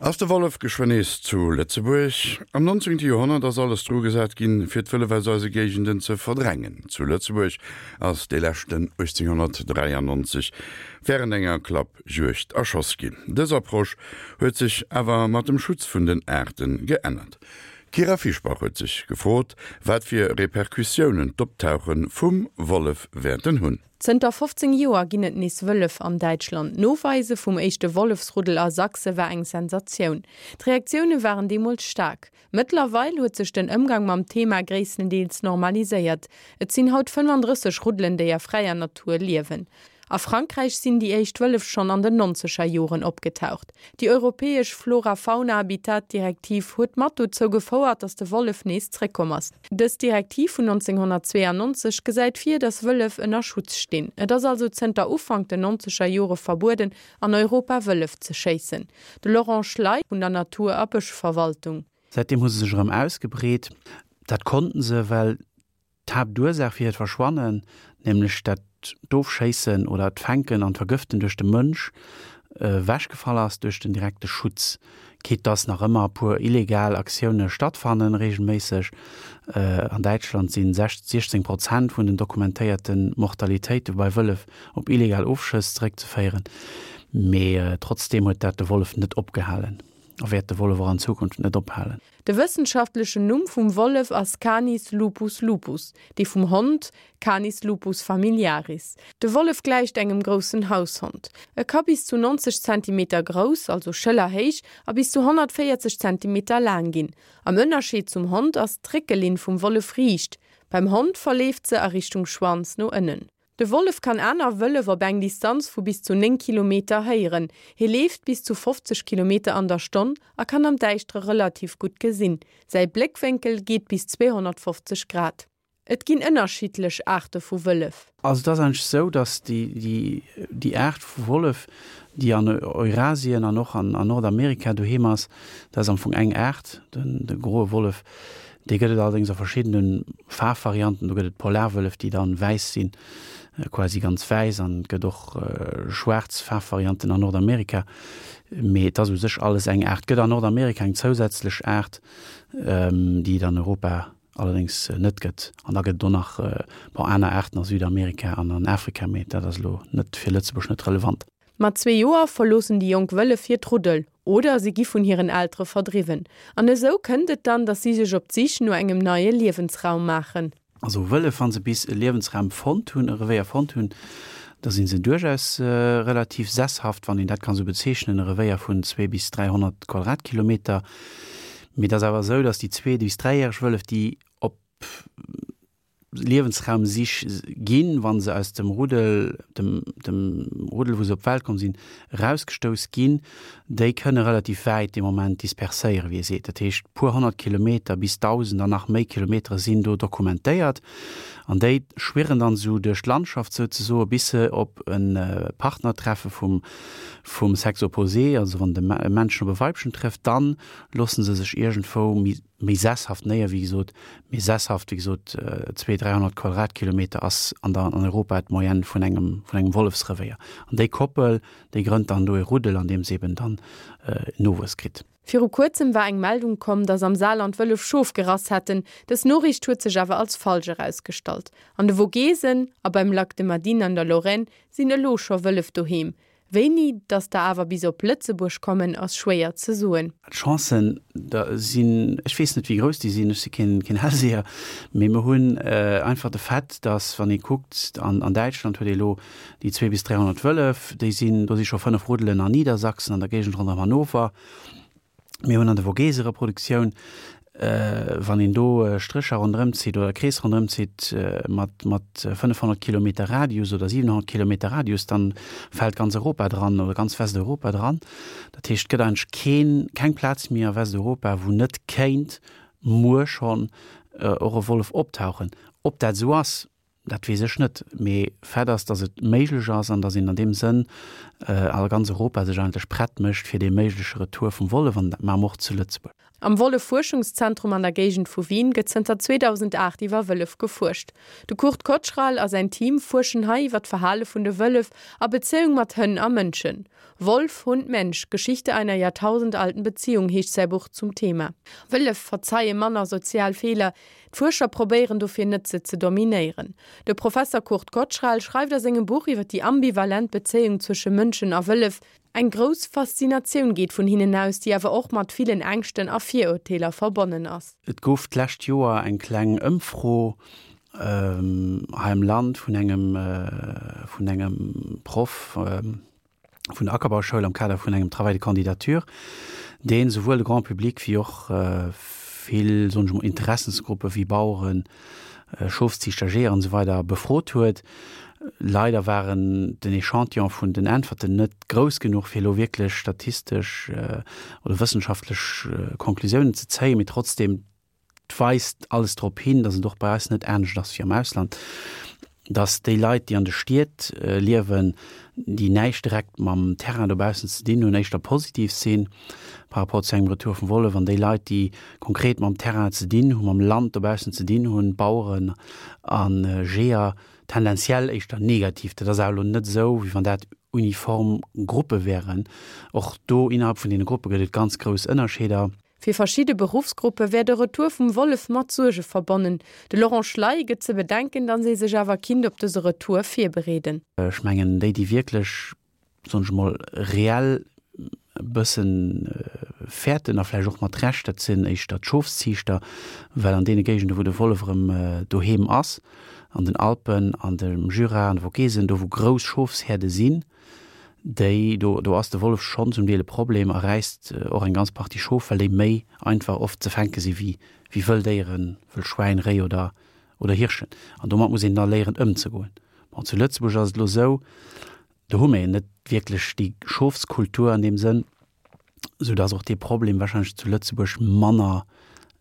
Ass de Wollef geschwënn nees zu Lëtzebuerg? Am 19. Joerhonnert ass alles dru gesat ginn, fir d'Wëllef aus eise Géigenden ze verdrängen. Zu Lëtzebuerg ass dee leschten 1893 wärend enger Klappjuegd erschoss ginn. Dës Approche huet sech awer mat dem Schutz vun den Aarte geännert. D'Kyra Fischbach huet sech gefrot, wat fir Repercussiounen d'Optauche vum Wollef wäerten hunn. Zënter 15 Joer ginn et nees Wëllef an Däitschland. D'Noweise vum éischte Wollefsruddel a Sachse war eng Sensatioun. D'Reaktioune waren deemools staark. Mëttlerweil huet sech den Ëmgang mam Thema gréisstendeels normaliséiert. Et sinn haut 35 Ruddelen, déi a fräier Natur liewen. A Frankräich sinn déi éischt Wëllef schonn an den nonzeger Joren opgetaucht. Déi europäesch Flora-Fauna-Habitat-Direktiv huet mat dozou gefouert, datt de Wollef nees zréckkomm ass. Dës Direktiv vun 1992 gesäit vir, datt Wëllef ënner Schutz stinn. Et ass also zënter Ufank den nonzeger Jore verbueden, an Europa Wëllef ze schéissen. De Laurent Schley vun der Natur a Bëschverwaltung. Säitdeem hu se sech erëm ausgebreet. Dat konnten se, well D'Haaptursaach fir hiert Verschwannen, nämlech dat d'Ofschéissen oder d'Fänken an d'Vergëften duerch de Mënsch, ewechgefall ass duerch den direkte Schutz. Quitte dass nach ëmmer e puer illegal Aktioune stattfannen, reegelméisseg. An Däitschland si 16 Prozent vun den dokumentéierte Mortalitéite bei Wëllef op illegal Ofschëss zeréckzeféieren. Mee trotzdeem huet dat de Wollef net opgehalen a wäert de Wollef och an Zukunft net ophalen. De wëssenschaftlechen Numm vum Wollef ass Canis lupus lupus, dee vum Hond Canis lupus familiaris. De Wollef gläicht engem groussen Haushond. E ka bis zu 90 Zentimeter grouss, also schëllerhéich, a bis zu 140 Zentimeter laang ginn. Am Ënnerscheed zum Hond ass d'Réckelinn vum Wollef riicht. Beim Hond verleeft se a Richtung Schwanz no ënnen. De Wollef kann aner Wëllef op eng Distanz vu bis zu 9 Kilometer héieren. Hie leeft bis zu 50 Kilometer an der Stonn a kann am Däischtere relativ gutt gesinn. Säi Bléckwénkel geet bis 250 Grad. Et ginn ënnerschiddlech Aarte vu Wëllef. Also et ass eigentlech esou, datt déi Aart vu Wollef, déi an Eurasien an och an Nordamerika doheem ass, dat ass am Fong eng Aart, de groe Wollef. Dee gëtt et allerdéngs a verschiddene Faarfvarianten. Do gëtt et Polarwëllef, déi dann wäiss sinn, quasi ganz wäiss, an et gëtt och schwaarz Faarfvarianten an Nordamerika. Mee et ass u sech alles eng Aart. Et gëtt an Nordamerika eng zousätzlech Aart, déi et an Europa allerdéngs net gëtt. An da gëtt et och nach, bon, aner Aarten a Südamerika an an Afrika, mee dat ass elo net fir Lëtzebuerg net relevant. Mat zwee Joer verloossen déi jonk Wëllef hiert Ruddel oder si gi vun hiren Eltere verdriwwen. An esou kënnt et dann, datt si sech op d'Sich no engem neie Liewensraum maachen. Also Wëllef, wa se bis e Liewensraum fonnt hunn, e Revéier fonnt hunn, da si se duerchaus relativ sesshaft, wann een dat kann esou bezeechnen, e Revéier vun zwee bis 300 Quadratkilometer. Mee et ass awer esou, datt déi zwee bis dräijäreg Wëllef, déi op Liewensraumsich ginn, wa se aus dem Ruddel, dem, dem Ruddel, wou se op d'Welt komm sinn, erausgestouss ginn, déi kënne relativ wäit dee Moment disperséieren, wéi ee seet. Dat heescht, puer 100 Kilometer bis 1.000 an nach méi Kilometere sinn do dokumentéiert. An déi schwirren dann esou duerch d'Landschaft souzesoe bis se op e Partner treffe vum, vum Sexe opposé, also wann de Männchen op e Weibchen trëfft, dann loosse se sech iergendwou méi, méi sesshaft néier, wéi gesot, méi sesshaft, wéi gesot, 200, 300 Quadratkilometer ass an der, an Europa d'Moyenne vun engem, vun engem Wollefsrevéier. An déi Koppel, déi grënnt dann do e Ruddel, an deem se eben dann Nowuess kritt. Viru kuerzem war eng Meldung komm, dass am Saarland Wëllef Schof gerass hätten. Dës Noriicht huet sech awer als falsch erausgestallt. An de Vogesen a beim Lac de Madine an der Lorraine sinn elo scho Wëllef doheem. Wéini datt der awer bis op Lëtzebuerg kommen, ass schwéier ze soen. D'Chancen da sinn, ech weess net wéi grouss déi sinn, ech si keen Hellseher, mee mer hunn einfach de Fait, datt wann ee kuckt, an an Däitschland huet ee elo déi 200 bis 300 Wëllef, déi sinn, do si scho 5 Ruddelen an Niedersachsen, an der Géigend ronderëm Hannover. Mir hunn an de Vogese Reproduktioun, wann een do Strécher ronderëm zitt oder Krees ronderëm zitt mat, mat 500 Kilometer Radius oder 700 Kilometer Radius, dann fält ganz Europa dran oder ganz Westeuropa dran. Dat heescht, et gëtt eigentlech keen, keng Plaz méi a Westeuropa, wou net kéint muer schonn och e Wollef optauchen. Ob dat esou ass? Dat weess ech net. Mee Fait ass, datt et méiglech ass an datt een an deem Sënn a ganz Europa sech eigentlech prett mécht fir dee méigleche Retour vum Wollef, an dat maache mer och zu Lëtzebuerg. Am Wollef-Fuerschungszentrum an der Géigend vu Wien gëtt zënter 2008 iwwer Wëllef gefuerscht. De Kurt Kotschral a säin Team fuerschen hei iwwer d'Verhale vun de Wëllef a Bezéiung mat Hënn a Mënschen. Wolf, Hund, Mensch, Geschichte einer jahrtausendalten Beziehung heescht säi Buch zum Thema. Wëllef verzeie manner sozial Feeler, d'Fuerscher probéieren dofir net se ze dominéieren. De Professer Kurt Kotschral schreift a sengem Buch iwwer déi ambivalent Bezéiung zwësche Mënschen a Wëllef, Eng grouss Faszinatioun geet vun hinnen aus, déi awer och mat villen Ängschten a Virurteeler verbonnen ass. Et gouf d'lescht Joer eng kleng Ëmfro hei am Land vun engem vun engem Proff vun der Ackerbauschoul am Kader vun engem Travail de candidature, deen souwuel de Grand public wéi och vill, soen ech mol, Interessensgruppe wéi Baueren, Schofsziichter, Jeeër an esou weider befrot huet. Leider waren den Echantillon vun den Äntwerten net grouss genuch, fir elo wierklech statistesch oder wëssenschaftlech Conclusiounen ze zéien, mee trotzdem weist alles drop hin, datt et och bei eis net anescht ass wéi am Ausland, datt déi Leit, déi an de Stied liewen, déi näischt direkt mam Terrain dobaussen ze dinn hunn, éischter positiv sinn par rapport zu engem Retour vum Wollef, an déi Leit, déi konkret mam Terrain ze dinn hunn, mam Land dobaussen ze dinn hunn, Baueren a Jeeër, tendenziell éischter negativ. Dat ass awer elo net esou, wéi wann dat uniform Gruppe wären. Och do innerhalb vun deene Gruppe gëtt et ganz grouss Ënnerscheeder. Fir verschidde Beruffsgruppe wär de Retour vum Wollef mat Suerge verbonnen. De Laurent Schley gëtt ze bedenken, datt ee sech awer kinnt op dëse Retour virbereeden. Ech mengen, déi, déi wierklech, soen ech emol, reell e bësse fäerten, a vläicht och mat Recht, dat sinn éischter d'Schofsziichter, well an deene Géigende wou de Wollef erëm doheem ass, an den Alpen, an dem Jura, an de Vogesen, do wou grouss Schofshäerde sinn, déi, do, do ass de Wollef schonn zum Deel e Problem a räisst och eng ganz Partie Schof, well déi méi einfach oft ze fänke si wéi, wéi wëll Déieren, wëll Schwäin, Réi oder, oder Hirschen. An domat muss een da léieren ëmzegoen. Bon, zu Lëtzebuerg ass et elo esou, do hu mir net wierklech déi Schofskultur an deem Sënn, soudass och dee Problem wahrscheinlech zu Lëtzebuerg manner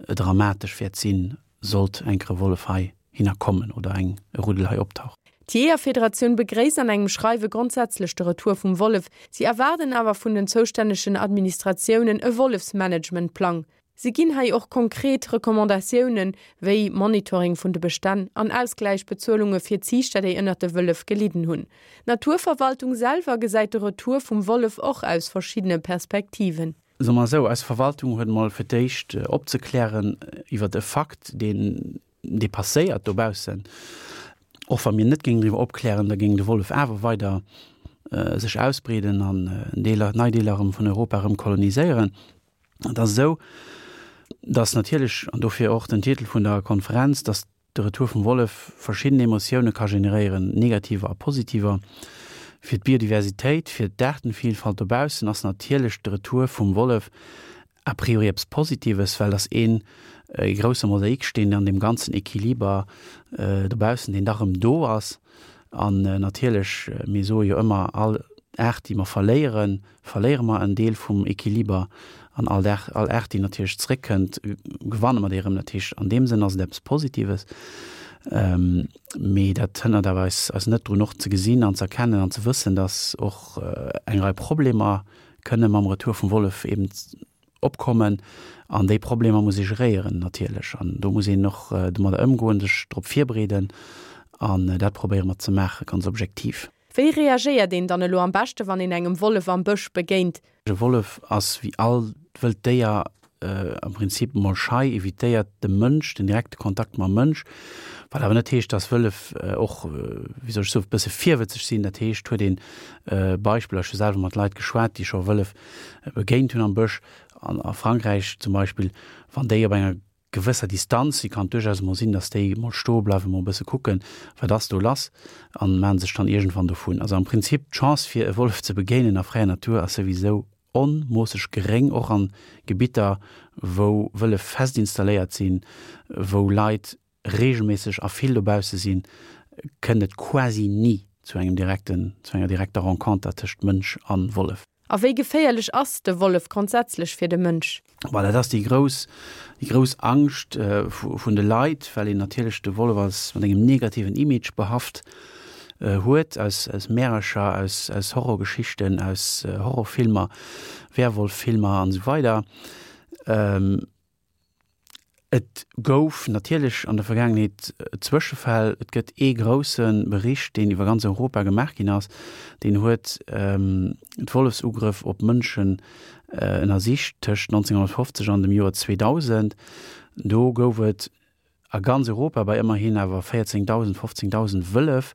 dramatesch wäert sinn, sollt enk e Wollef hei hinner kommen oder eng e Ruddel hei optauchen. D'Jeeërfederatioun begréisst an engem Schreiwe grondsätzlech de Retour vum Wollef. Si erwaarden awer vun den zoustännegen Administratiounen e Wollefsmanagementplang. Si ginn hei och konkret Recommandatiounen, wéi Monitoring vun de Bestänn an Ausgläichbezuelunge fir Ziichter, déi ënnert de Wëllef gelidden hunn. D'Naturverwaltung selwer gesäit de Retour vum Wollef och aus verschiddene Perspektiven. Soe mer esou, eis Verwaltung huet emol fir d'éischt opzeklären iwwert e Fakt, deen, dee passéiert dobaussen. Och wa mir net géingen driwwer opklären, da géing de Wollef awer weider sech ausbreeden an Deeler, nei Deeler erëm vun Europa erëm koloniséieren. Et ass esou, datt natierlech, an dofir och den Titel vun der Konferenz, datt De Retour vum Wollef verschidden Emotioune ka generéieren, negativer a positiver. Fir d'Biodiversitéit, fir d'Aartenvielfalt dobaussen ass natierlech de Retour vum Wollef a priori eppes Positives, well dass een e grousse Mosaiksteen an deem ganzen Equiliber dobaussen, deen da rëm do ass. An natierlech, mir soe jo ëmmer, all Aart, déi mer verléieren, verléiere mer en Deel vum Equiliber an all Dag, all Aart, déi natierlech zréckkënnt, gewanne mer déi erëm. Dat heescht, an deem Sënn ass et eppes Positives. Mee dat hënnert awer eis, eis net drun, och ze gesinn an ze erkennen an ze wëssen, dass och eng Rei Problemer kënne mam Retour vum Wollef eben opkommen. An déi Problemer muss ee geréieren natierlech. An do muss een och domadder ëmgoen, sech drop virbereeden. An dat probéiere mer ze maachen, ganz objektiv. Wéi reagéiert een dann elo am beschte wann een engem Wollef am Bësch begéint? E Wollef ass wéi all wëllt Déier am Prinzip mol schei, evitéiert de Mënsch, den direkte Kontakt mam Mënsch, wat awer net heescht, dass Wëllef och, wéi soll ech soen, e bësse virwëtzeg sinn. Dat heescht, huet een Beispiller, ech hu selwer mat Leit geschwat, déi scho Wëllef begéint hunn am Bësch, an a Frankräich zum Beispill, wann déi op enger gewësser Distanz, si kann duerchaus emol sinn, datt déi emol stoe bleiwen, emol e bësse kucken, wat ass do lass, an maachen sech dann iergendwann dovun. Also am Prinzip d'Chance fir e Wollef ze begéinen a fräier Natur ass souwisou onmoosseg geréng, och an Gebitter wou Wëllef fest installéiert sinn, wou Leit regelméisseg a vill dobausse sinn, kënnt et quasi ni zu engem direkten, zu enger direkter Renconter tëscht Mënsch an Wollef. A wéi geféierlech ass de Wollef grondsätzlech fir de Mënsch? Bon, dat ass déi grouss, déi grouss Angscht vun de Leit, well een natierlech de Wollef als mat engem negativen Image behaft huet, aus, aus Märercher, aus, aus Horrorgeschichten, aus Horrorfilmer, Werwolffilmer an esou weider. Et gouf natierlech an der Vergaangenheet Zwëschefäll. Et gëtt ee grousse Bericht, deen iwwer ganz Europa gemaach ginn ass, deen huet d'Wollefsugrëff op Mënschen ënnersicht tëscht 1950 an dem Joer 2000. Do gouf et A ganz Europa, bei ëmmerhin awer 14.000, 15.000 Wëllef,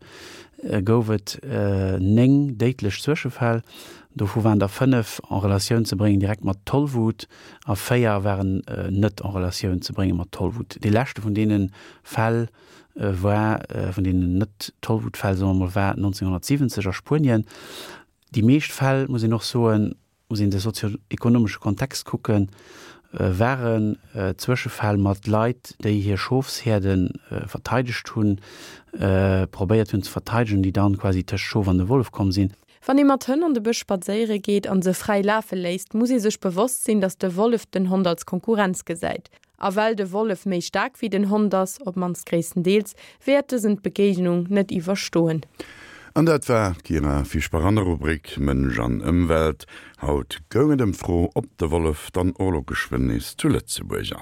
gouf et 9 déidlech Zwëschefäll. Dovu waren der 5 en Relatioun ze bréngen direkt mat Tollwut a 4 waren net en Relatioun ze brénge mat Tollwut. Dee leschte vun deene Fäll war, vun deenen Net-Tollwut-Fäll, soe mer mol, war 1970 a Spuenien. Déi meescht Fäll, muss een och soen, muss een de sozio-ekonomesche Kontext kucken, waren Zwëschefäll mat Leit, déi hir Schofshäerde verteidegt hunn, probéiert hunn ze verteidegen, déi dann quasi tëscht d'Schof an de Wollef komm sinn. Wann ee mat Hënn an de Bësch spadséiere geet an se fräi lafe léisst, muss ee sech bewosst sinn, datt de Wollef den Hond als Konkurrenz gesäit. A well de Wollef méi staark wéi den Hond ass, op mannst gréisstendeels, wäert dësen d'Begéignung net iwwerstoen. An dat war d'Kira Fischbach an der Rubrik Mënsch an Ëmwelt. Haut goung et ëm d'Fro, ob de Wollef dann och elo geschwënn nees zu Lëtzebuerg ass.